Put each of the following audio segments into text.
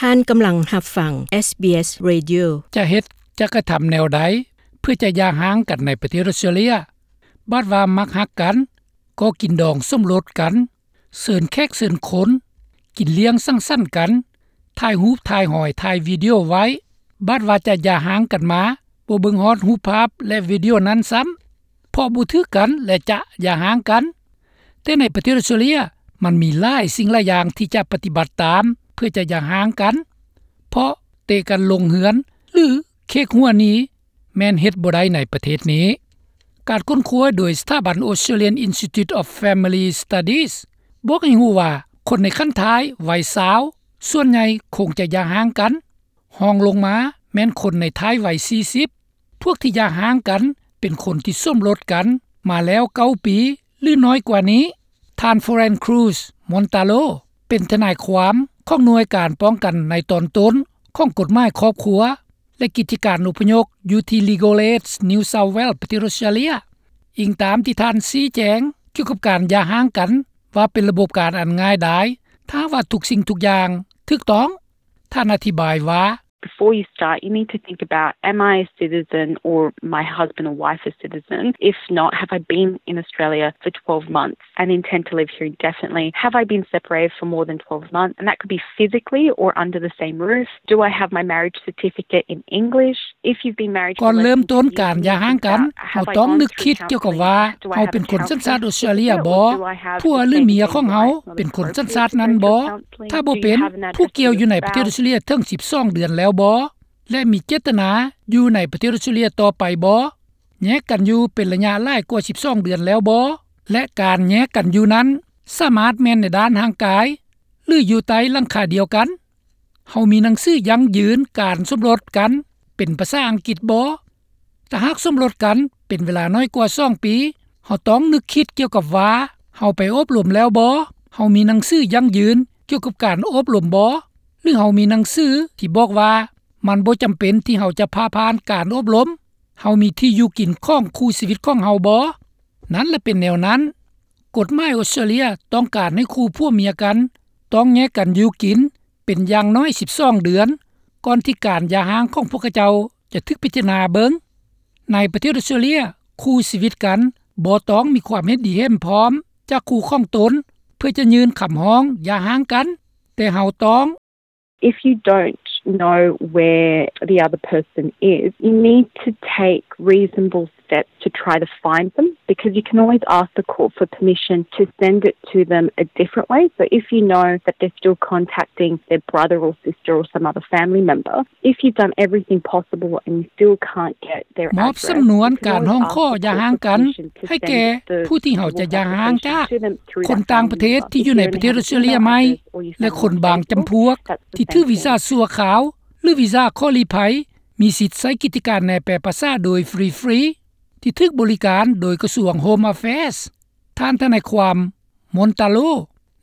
ທ່ານກຳລັງຮັບຟັງ SBS Radio. ຈະເຮັດ ຈະກະທຳແນວໃດ ເພື່ອຈະຢ່າຮ້າງກັນໃນປະເທດອອສເຕຣເລຍ? ບາດວ່າມັກຮັກກັນ ກໍກິນດອງສົມລົດກັນ, ເຊີນແຂກເຊີນຄົນ, ກິນລ້ຽງສັງສັນກັນ, ຖ່າຍຮູບ, ຖ່າຍຮອຍ, ຖ່າຍວິດີໂອໄວ້. ບາດວ່າຈະຢ່າຮ້າງກັນມາ, ບໍ່ເບິ່ງຮອດຮູບພາບ ແລະ ວິດີໂອນັ້ນຊ້ຳ, ເພາະບໍ່ຖືກກັນ ແລະ ຈະຢ່າຮ້າງກັນ. ແຕ່ໃນປະເທດອອສເຕຣເລຍ ມັນມີຫຼາຍສິ່ງຫຼາຍຢ່າງທີ່ຈະປະຕິບັດຕາມ ເພື່ອຈະຢ່າຮ້າງກັນ, ເພາະເຕະກັນລົງເຮືອນ ຫຼື ເຄກຫົວໜີ ແມ່ນເຮັດບໍ່ໄດ້ໃນປະເທດນີ້. ການຄົ້ນຄວ້າໂດຍສະຖາບັນ Australian Institute of Family Studies ບອກໃຫ້ຮູ້ວ່າ ຄົນໃນຂັ້ນທ້າຍໄວຊາວ ສ່ວນໃຫຍ່ຄົງຈະຢ່າຮ້າງກັນ. ຮອງລົງມາແມ່ນຄົນໃນທ້າຍໄວສີ່ສິບ. ພວກທີ່ຢ່າຮ້າງກັນເປັນຄົນທີ່ສົມລົດກັນມາແລ້ວເກົ້າປີ ຫຼື ນ້ອຍກວ່ານີ້. ທ່ານ Florence Cruz Montalo ເປັນທະນາຍຄວາມຂອງໜ່ວຍການປ້ອງກັນໃນຕອນຕົ້ນຂອງກົດໝາຍຄອບຄົວ ແລະ ກິດຈະການອົບພະຍົບຢູ່ທີ່ Legal Aid New South Wales ປະເທດອອສເຕຣເລຍ. ອີງຕາມທີ່ທ່ານຊີ້ແຈງກ່ຽວກັບການຢ່າຮ້າງກັນ ວ່າເປັນລະບົບການອັນງ່າຍດາຍ ຖ້າຫາກວ່າທຸກສິ່ງທຸກຢ່າງຖືກຕ້ອງ. ທ່ານອະທິບາຍວ່າ, Before you start, you need to think about, am I a citizen or my husband or wife a citizen? If not, have I been in Australia for twelve months and intend to live here indefinitely? Have I been separated for more than twelve months? And that could be physically or under the same roof. Do I have my marriage certificate in English? If you've been married ກ່ອນເລີ່ມຕົ້ນການຢ່າຮ້າງກັນ, ເຮົາຕ້ອງນຶກຄິດກ່ຽວກັບວ່າ ເຮົາເປັນຄົນສັນຊາດອອສເຕຣເລຍບໍ? ຜົວ ຫຼື ເມຍຂອງເຮົາເປັນຄົນສັນຊາດນັ້ນບໍ? ຖ້າບໍ່ເປັນ, ຜູ່ກ່ຽວຢູ່ໃນປະເທດອອສເຕຣເລຍເຖິງສິບສອງເດືອນແລ້ວບໍ? ແລະ ມີເຈດຕະນາຢູ່ໃນປະເທດອອສເຕຣເລຍຕໍ່ໄປບໍ? ແຍກກັນຢູ່ເປັນໄລຍະຫຼາຍກວ່າສິບສອງເດືອນແລ້ວບໍ? ແລະ ການແຍກກັນຢູ່ນັ້ນ ສາມາດແມ່ນໃນດ້ານຮ່າງກາຍ ຫຼື ຢູ່ໃຕ້ຫຼັງຄາດຽວກັນ? ເຮົາມີໜັງສືຢັ້ງຢືນການສົມລົດກັນເປັນພາສາອັງກິດບໍ? ຖ້າຫາກສົມລົດກັນເປັນເວລານ້ອຍກວ່າສອງປີ, ເຮົາຕ້ອງນຶກຄິດກ່ຽວກັບວ່າ ເຮົາໄປອົບຮົມແລ້ວບໍ? ເຮົາມີໜັງສືຢັ້ງຢືນກ່ຽວກັບການອົບຮົມບໍ? ຫຼື ເຮົາມີໜັງສືທີ່ບອກວ່າ ມັນບໍ່ຈຳເປັນທີ່ເຮົາຈະຜ່າຜ່ານການອົບຮົມ? ເຮົາມີທີ່ຢູ່ກິນຂອງຄູ່ຊີວິດຂອງເຮົາບໍ? ນັ້ນລະເປັນແນວນັ້ນ. ກົດໝາຍອອສເຕຣເລຍຕ້ອງການໃຫ້ຄູ່ຜົວເມຍກັນ ຕ້ອງແຍກກັນຢູ່ກິນເປັນຢ່າງນ້ອຍສິບສອງເດືອນ ກ່ອນທີ່ການຢ່າຮ້າງຂອງພວກເຂົາເຈົ້າຈະຖືກພິຈາລະນາເບິ່ງ. ໃນປະເທດອອສເຕຣເລຍ, ຄູ່ຊີວິດກັນບໍ່ຕ້ອງມີຄວາມເຫັນດີເຫັນພ້ອມຈາກຄູ່ຂອງຕົນ ເພື່ອຈະຍື່ນຄຳຮ້ອງຢ່າຮ້າງກັນ, ແຕ່ເຮົາຕ້ອງ If you don't know where the other person is, you need to take reasonable steps to try to find them, because you can always ask the court for permission to send it to them a different way. So if you know that they're still contacting their brother or sister or some other family member, if you've done everything possible and you still can't get their address, you can always ask the court for permission to send the towards the court. ມອບສຳນວນການຮ້ອງຂໍຢ່າຮ້າງກັນໃຫ້ແກ່ຜູ້ທີ່ເຮົາຈະຢ່າຮ້າງຈາກ, ຄົນຕ່າງປະເທດທີ່ຢູ່ໃນປະເທດອອສເຕຣເລຍໃໝ່ ແລະ ຄົນບາງຈຳພວກທີ່ຖືກວີຊາຊົ່ວຄາວ ຫຼື ວີຊາຂໍລີ້ໄພ ມີສິດໃຊ້ກິດຈະການແນແປພາສາໂດຍຟຣີໆ ທີ່ຖືກບໍລິການໂດຍກະຊວງ Home Affairs. ທ່ານທະນາຍຄວາມ Montalo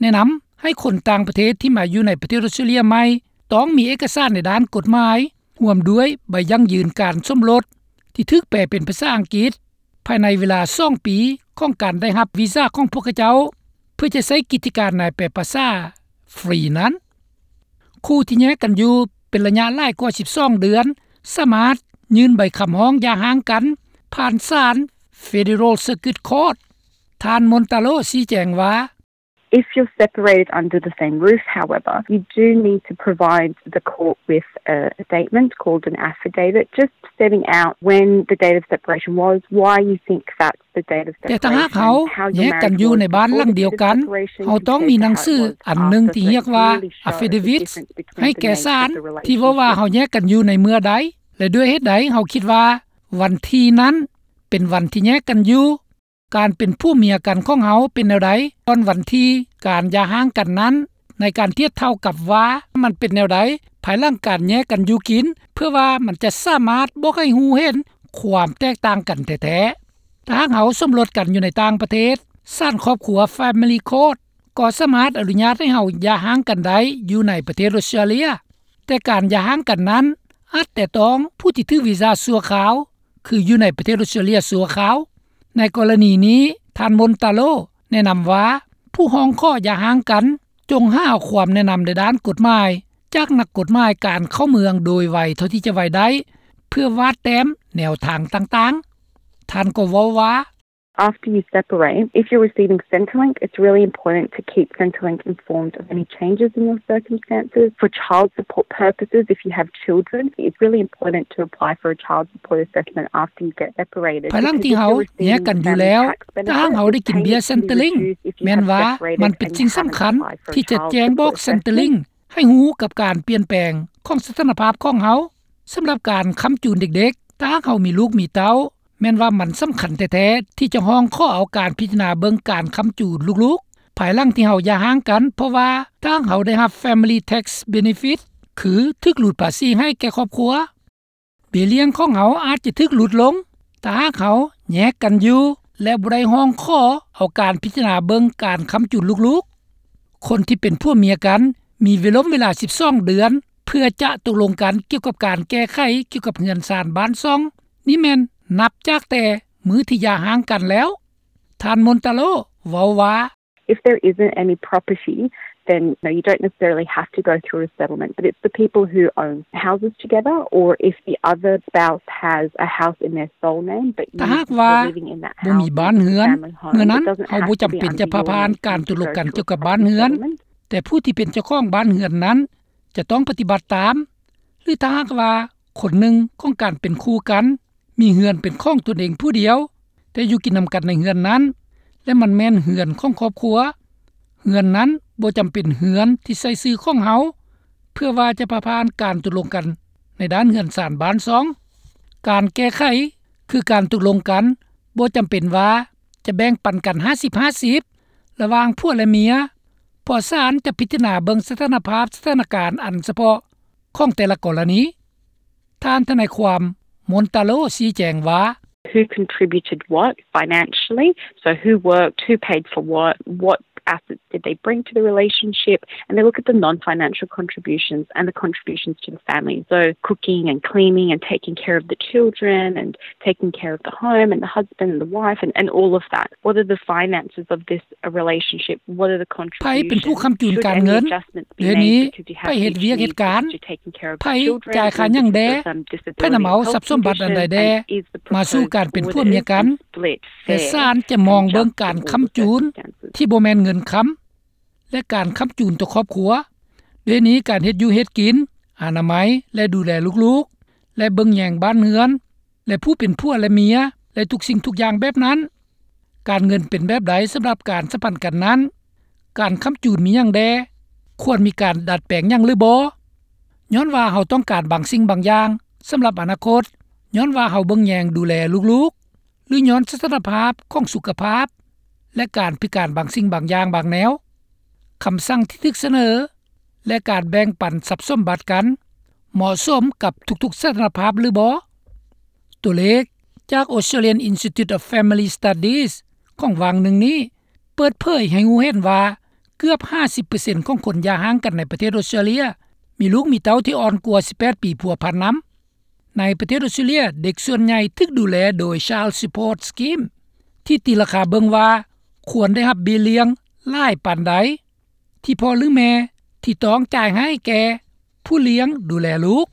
ແນະນຳໃຫ້ຄົນຕ່າງປະເທດທີ່ມາຢູ່ໃນປະເທດອອສເຕຣເລຍໃໝ່ ຕ້ອງມີເອກະສານໃນດ້ານກົດໝາຍ ຮ່ວມດ້ວຍໃບຢັ້ງຢືນການສົມລົດທີ່ຖືກແປເປັນພາສາອັງກິດ ພາຍໃນເວລາສອງປີຂອງການໄດ້ຮັບວີຊາຂອງພວກເຂົາເຈົ້າ ເພື່ອຈະໃຊ້ກິດຈະການນາຍແປພາສາຟຣີນັ້ນ. ຄູ່ທີ່ແຍກກັນຢູ່ເປັນໄລຍະຫຼາຍກວ່າສິບສອງເດືອນ ສາມາດຍື່ນໃບຄຳຮ້ອງຢ່າຮ້າງກັນຜ່ານສານ Federal Circuit Court. ທ່ານ Montalo ຊີ້ແຈງວ່າ, If you're separated under the same roof, however, you do need to provide the court with a statement called an affidavit, just setting out when the date of separation was, why you think that's the date of separation, how your marriage was before the physical separation, and how your marriage was after the physical separation. ແຕ່ຖ້າຫາກເຮົາແຍກກັນຢູ່ໃນບ້ານຫຼັງດຽວກັນ, ເຮົາຕ້ອງມີໜັງສືອັນໜຶ່ງທີ່ຮຽກວ່າ affidavit ໃຫ້ແກ່ສານ ທີ່ເວົ້າວ່າເຮົາແຍກກັນຢູ່ໃນເມື່ອໃດ ແລະ ດ້ວຍເຫດໃດເຮົາຄິດວ່າວັນທີນັ້ນເປັນວັນທີ່ແຍກກັນຢູ່. ການເປັນຜົວເມຍກັນຂອງເຮົາເປັນແນວໃດກ່ອນວັນທີການຢ່າຮ້າງກັນນັ້ນ, ໃນການທຽບເທົ່າກັບວ່າມັນເປັນແນວໃດພາຍຫຼັງການແຍກກັນຢູ່ກິນ, ເພື່ອວ່າມັນຈະສາມາດບອກໃຫ້ຮູ້ເຫັນຄວາມແຕກຕ່າງກັນແທ້ໆ. ຖ້າຫາກເຮົາສົມລົດກັນຢູ່ໃນຕ່າງປະເທດ, ສານຄອບຄົວ Family Court ກໍສາມາດອະນຸຍາດໃຫ້ເຮົາຢ່າຮ້າງກັນໄດ້ຢູ່ໃນປະເທດອອສເຕຣເລຍ. ແຕ່ການຢ່າຮ້າງກັນນັ້ນ ອາດແຕະຕ້ອງຜູ້ທີ່ຖືກວີຊາຊົ່ວຄາວ ຄືຢູ່ໃນປະເທດອອສເຕຣເລຍຊົ່ວຄາວ. ໃນກໍລະນີນີ້, ທ່ານ Montalo ແນະນຳວ່າ ຜູ້ຮ້ອງຂໍຢ່າຮ້າງກັນ ຈົ່ງຫາເອົາຄວາມແນະນຳໃນດ້ານກົດໝາຍ ຈາກນັກກົດໝາຍການເຂົ້າເມືອງໂດຍໄວເທົ່າທີ່ຈະໄວໄດ້ ເພື່ອວາດແຕ້ມແນວທາງຕ່າງໆ. ທ່ານກໍເວົ້າວ່າ After you separate, if you're receiving Centrelink, it's really important to keep Centrelink informed of any changes in your circumstances. For child support purposes, if you have children, it's really important to apply for a child support assessment after you get separated. ພາຍຫຼັງທີ່ເຮົາແຍກກັນຢູ່ແລ້ວ, ຖ້າຫາກເຮົາໄດ້ກິນເບ້ຍ Centrelink, ແມ່ນວ່າມັນເປັນສິ່ງສຳຄັນທີ່ຈະແຈ້ງບອກ Centrelink ໃຫ້ຮູ້ກັບການປ່ຽນແປງຂອງສະຖານະພາບຂອງເຮົາ. ສຳລັບການຄ້ຳຈູນເດັກໆ, ຖ້າຫາກເຮົາມີລູກມີເຕົ້າ, ແມ່ນວ່າມັນສຳຄັນແທ້ໆທີ່ຈະຮ້ອງຂໍເອົາການພິຈາລະນາເບິ່ງການຄ້ຳຈູນລູກໆ ພາຍຫຼັງທີ່ເຮົາຢ່າຮ້າງກັນ, ເພາະວ່າຖ້າຫາກເຮົາໄດ້ຮັບ Family Tax Benefit ຄືຖືກຫຼຸດພາສີໃຫ້ແກ່ຄອບຄົວ, ເບ້ຍລ້ຽງຂອງເຮົາອາດຈະຖືກຫຼຸດລົງ ຖ້າຫາກເຮົາແຍກກັນຢູ່ ແລະ ບໍ່ໄດ້ຮ້ອງຂໍເອົາການພິຈາລະນາເບິ່ງການຄ້ຳຈູນລູກໆ. ຄົນທີ່ເປັນຜົວເມຍກັນ ມີເວລົມເວລາສິບສອງເດືອນ ເພື່ອຈະຕົກລົງກັນກ່ຽວກັບການແກ້ໄຂກ່ຽວກັບເຮືອນຊານບ້ານຊ່ອງ. ນີ້ແມ່ນນັບຈາກແຕ່ມື້ທີ່ຢ່າຮ້າງກັນແລ້ວ. ທ່ານ Montalo ເວົ້າວ່າ If there isn't any property, then, no, you don't necessarily have to go through a settlement, but it's the people who own houses together, or if the other spouse has a house in their sole name, but you, ຖ້າຫາກວ່າ you're living in that house, ບໍ່ມີບ້ານເຮືອນ, ເມື່ອນັ້ນເຮົາບໍ່ຈຳເປັນຈະຜ່າຜ່ານການຕົກລົງກັນກ່ຽວກັບບ້ານເຮືອນ, ແຕ່ຜູ້ທີ່ເປັນເຈົ້າຂອງບ້ານເຮືອນນັ້ນຈະຕ້ອງປະຕິບັດຕາມ. ຫຼື ຖ້າຫາກວ່າຄົນໜຶ່ງຂອງການເປັນຄູ່ກັນ ມີເຮືອນເປັນຂອງຕົນເອງຜູ້ດຽວ, ແຕ່ຢູ່ກິນນຳກັນໃນເຮືອນນັ້ນ ແລະ ມັນແມ່ນເຮືອນຂອງຄອບຄົວ, ເຮືອນນັ້ນບໍ່ຈຳເປັນເຮືອນທີ່ໃສ່ຊື່ຂອງເຮົາ ເພື່ອວ່າຈະຜ່າຜ່ານການຕົກລົງກັນໃນດ້ານເຮືອນຊານບ້ານຊ່ອງ. ການແກ້ໄຂຄືການຕົກລົງກັນ, ບໍ່ຈຳເປັນວ່າຈະແບ່ງປັນກັນຫ້າສິບຫ້າສິບ ລະຫວ່າງຜົວ ແລະ ເມຍ, ເພາະສານຈະພິຈາລະນາເບິ່ງສະຖານະພາບສະຖານະການອັນສະເພາະຂອງແຕ່ລະກໍລະນີ. ທ່ານທະນາຍຄວາມ Montalo ຊີ້ແຈງວ່າ Who contributed what financially? So who worked, who paid for what, what assets did they bring to the relationship? And they look at the non-financial contributions and the contributions to the family. So cooking and cleaning and taking care of the children and taking care of the home and the husband and the wife and, and all of that. What are the finances of this a relationship, what are the contributions? ໃຜເປັນຜູ້ຄ້ຳຈູນການເງິນ? ເດນີ້ ໃຜເຮັດວຽກເຮັດການ? ໃຜຈ່າຍຄ່າຫຍັງແດ່? ໃຜນຳເອົາຊັບສົມບັດອັນໃດແດ່ມາສູ່ການເປັນຜົວເມຍກັນ? ແລະ ສານຈະມອງເບິ່ງການຄ້ຳຈູນທີ່ບໍ່ແມ່ນເງິນຄຳ ແລະ ການຄ້ຳຈູນຕໍ່ຄອບຄົວ. ເດນີ້ ການເຮັດຢູ່ເຮັດກິນ, ອະນາໄມ ແລະ ດູແລລູກໆ ແລະ ເບິ່ງແຍງບ້ານເຮືອນ ແລະ ຜູ້ເປັນຜົວ ແລະ ເມຍ ແລະ ທຸກສິ່ງທຸກຢ່າງແບບນັ້ນ. ການເງິນເປັນແບບໃດສຳລັບການສຳພັນກັນນັ້ນ? ການຄ້ຳຈູນມີຫຍັງແດ່? ຄວນມີການດັດແປງຫຍັງຫຼືບໍ່? ຍ້ອນວ່າເຮົາຕ້ອງການບາງສິ່ງບາງຢ່າງສຳລັບອະນາຄົດ, ຍ້ອນວ່າເຮົາເບິ່ງແຍງດູແລລູກໆ ຫຼື ຍ້ອນສະຖານະພາບຂອງສຸຂະພາບ ແລະ ການພິການບາງສິ່ງບາງຢ່າງບາງແນວ. ຄຳສັ່ງທີ່ຖືກສະເໜີ ແລະ ການແບ່ງປັນຊັບສົມບັດກັນ ເໝາະສົມກັບທຸກໆສະຖານະພາບຫຼືບໍ່? ຕົວເລກຈາກ Australian Institute of Family Studies ຂອງຫວ່າງໜຶ່ງນີ້ ເປີດເຜີຍໃຫ້ຮູ້ເຫັນວ່າ ເກືອບຫ້າສິບເປີເຊັນຂອງຄົນຢ່າຮ້າງກັນໃນປະເທດອອສເຕຣເລຍ ມີລູກມີເຕົ້າທີ່ອ່ອນກວ່າສິບແປດປີພົວພັນນຳ. ໃນປະເທດອອສເຕຣເລຍ ເດັກສ່ວນໃຫຍ່ຖືກດູແລໂດຍ Child Support Scheme ທີ່ຕີລາຄາເບິ່ງວ່າຄວນໄດ້ຮັບເບ້ຍລ້ຽງຫຼາຍປານໃດ ທີ່ພໍ່ ຫຼື ແມ່ທີ່ຕ້ອງຈ່າຍໃຫ້ແກ່ຜູ້ລ້ຽງດູແລລູກ.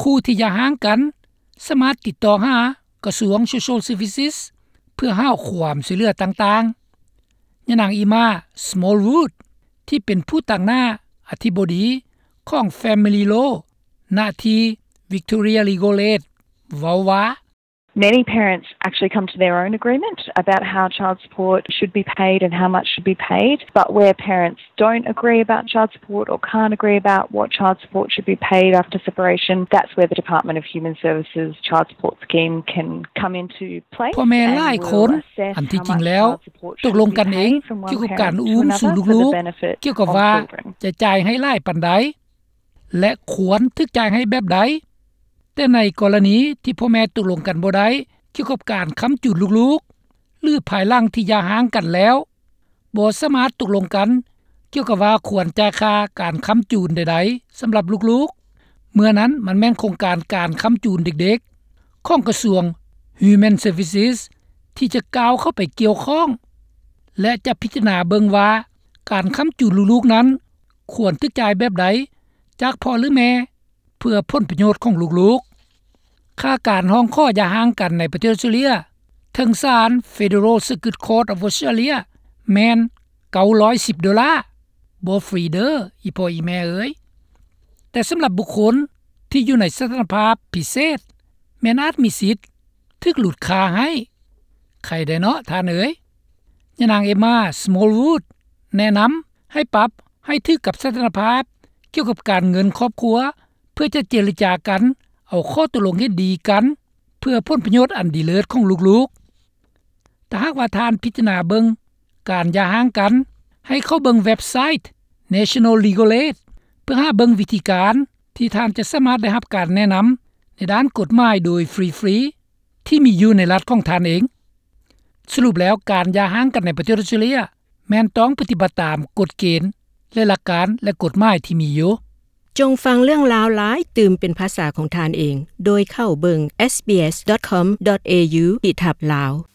ຄູ່ທີ່ຢ່າຮ້າງກັນສາມາດຕິດຕໍ່ຫາກະຊວງ Social Services ເພື່ອຫາຄວາມຊ່ວຍເຫຼືອຕ່າງໆ. ຍານາງ Emma Smallwood ທີ່ເປັນຜູ້ຕາງໜ້າອະທິບໍດີຂອງ Family Law ນະທີ່ Victoria Legal Aid ເວົ້າວ່າ Many parents actually come to their own agreement about how child support should be paid and how much should be paid, but where parents don't agree about child support or can't agree about what child support should be paid after separation, that's where the Department of Human Services Child Support Scheme can come into place. ພໍ່ແມ່ຫຼາຍຄົນ ອັນທີ່ຈິງແລ້ວຕົກລົງກັນເອງກ່ຽວກັບການອຸ້ມຊູລູກໆ ກ່ຽວກັບວ່າຈະຈ່າຍໃຫ້ຫຼາຍປານໃດ ແລະ ຄວນຖືກຈ່າຍໃຫ້ແບບໃດ. ແຕ່ໃນກໍລະນີທີ່ພໍ່ແມ່ຕົກລົງກັນບໍ່ໄດ້ກ່ຽວກັບການຄ້ຳຈູນລູກໆ ຫຼື ພາຍຫຼັງທີ່ຢ່າຮ້າງກັນແລ້ວ ບໍ່ສາມາດຕົກລົງກັນກ່ຽວກັບວ່າຄວນຈ່າຍຄ່າການຄ້ຳຈູນໃດໆສຳລັບລູກໆ, ເມື່ອນັ້ນມັນແມ່ນໂຄງການການຄ້ຳຈູນເດັກໆຂອງກະຊວງ Human Services ທີ່ຈະກ້າວເຂົ້າໄປກ່ຽວຂ້ອງ ແລະ ຈະພິຈາລະນາເບິ່ງວ່າການຄ້ຳຈູນລູກໆນັ້ນຄວນຖືກຈ່າຍແບບໃດ ຈາກພໍ່ຫຼືແມ່ ເພື່ອຜົນປະໂຫຍດຂອງລູກໆ. ຄ່າການຮ້ອງຂໍຢ່າຮ້າງກັນໃນປະເທດອອສເຕຣເລັຽ ເຖິງສານ Federal Circuit Court of Australia ແມ່ນ ເກົ້າຮ້ອຍສິບໂດລາ. ບໍ່ຟຣີເດີ ອີ່ພໍ່ອີ່ແມ່ເອີຍ. ແຕ່ສຳລັບບຸກຄົນທີ່ຢູ່ໃນສະຖານະພາບພິເສດ ແມ່ນອາດມີສິດຖືກຫຼຸດຄ່າໃຫ້. ໃຄໄດ໋ເນາະທ່ານເອີຍ. ຍານາງ Emma Smallwood ແນະນຳໃຫ້ປັບໃຫ້ຖືກກັບສະຖານະພາບກ່ຽວກັບການເງິນຄອບຄົວ ເພື່ອຈະເຈລະຈາກັນ ເອົາຂໍ້ຕົກລົງເຫັນດີກັນ ເພື່ອຜົນປະໂຫຍດອັນດີເລີດຂອງລູກໆ. ຖ້າຫາກວ່າທ່ານພິຈາລະນາເບິ່ງການຢ່າຮ້າງກັນ ໃຫ້ເຂົ້າເບິ່ງເວັບໄຊ National Legal Aid ເພື່ອຫາເບິ່ງວິທີການທີ່ທ່ານຈະສາມາດໄດ້ຮັບການແນະນຳໃນດ້ານກົດໝາຍໂດຍຟຣີໆ ທີ່ມີຢູ່ໃນລັດຂອງທ່ານເອງ. ສະຫຼຸບແລ້ວ ການຢ່າຮ້າງກັນໃນປະເທດອອສເຕຣເລັຽ ແມ່ນຕ້ອງປະຕິບັດຕາມກົດເກນ ແລະ ຫຼັກການ ແລະ ກົດໝາຍທີ່ມີຢູ່. ຈົ່ງຟັງເລື່ອງລາວຫຼາຍຕື່ມເປັນພາສາຂອງທ່ານເອງ ໂດຍເຂົ້າເບິ່ງ sbs.com.au/lao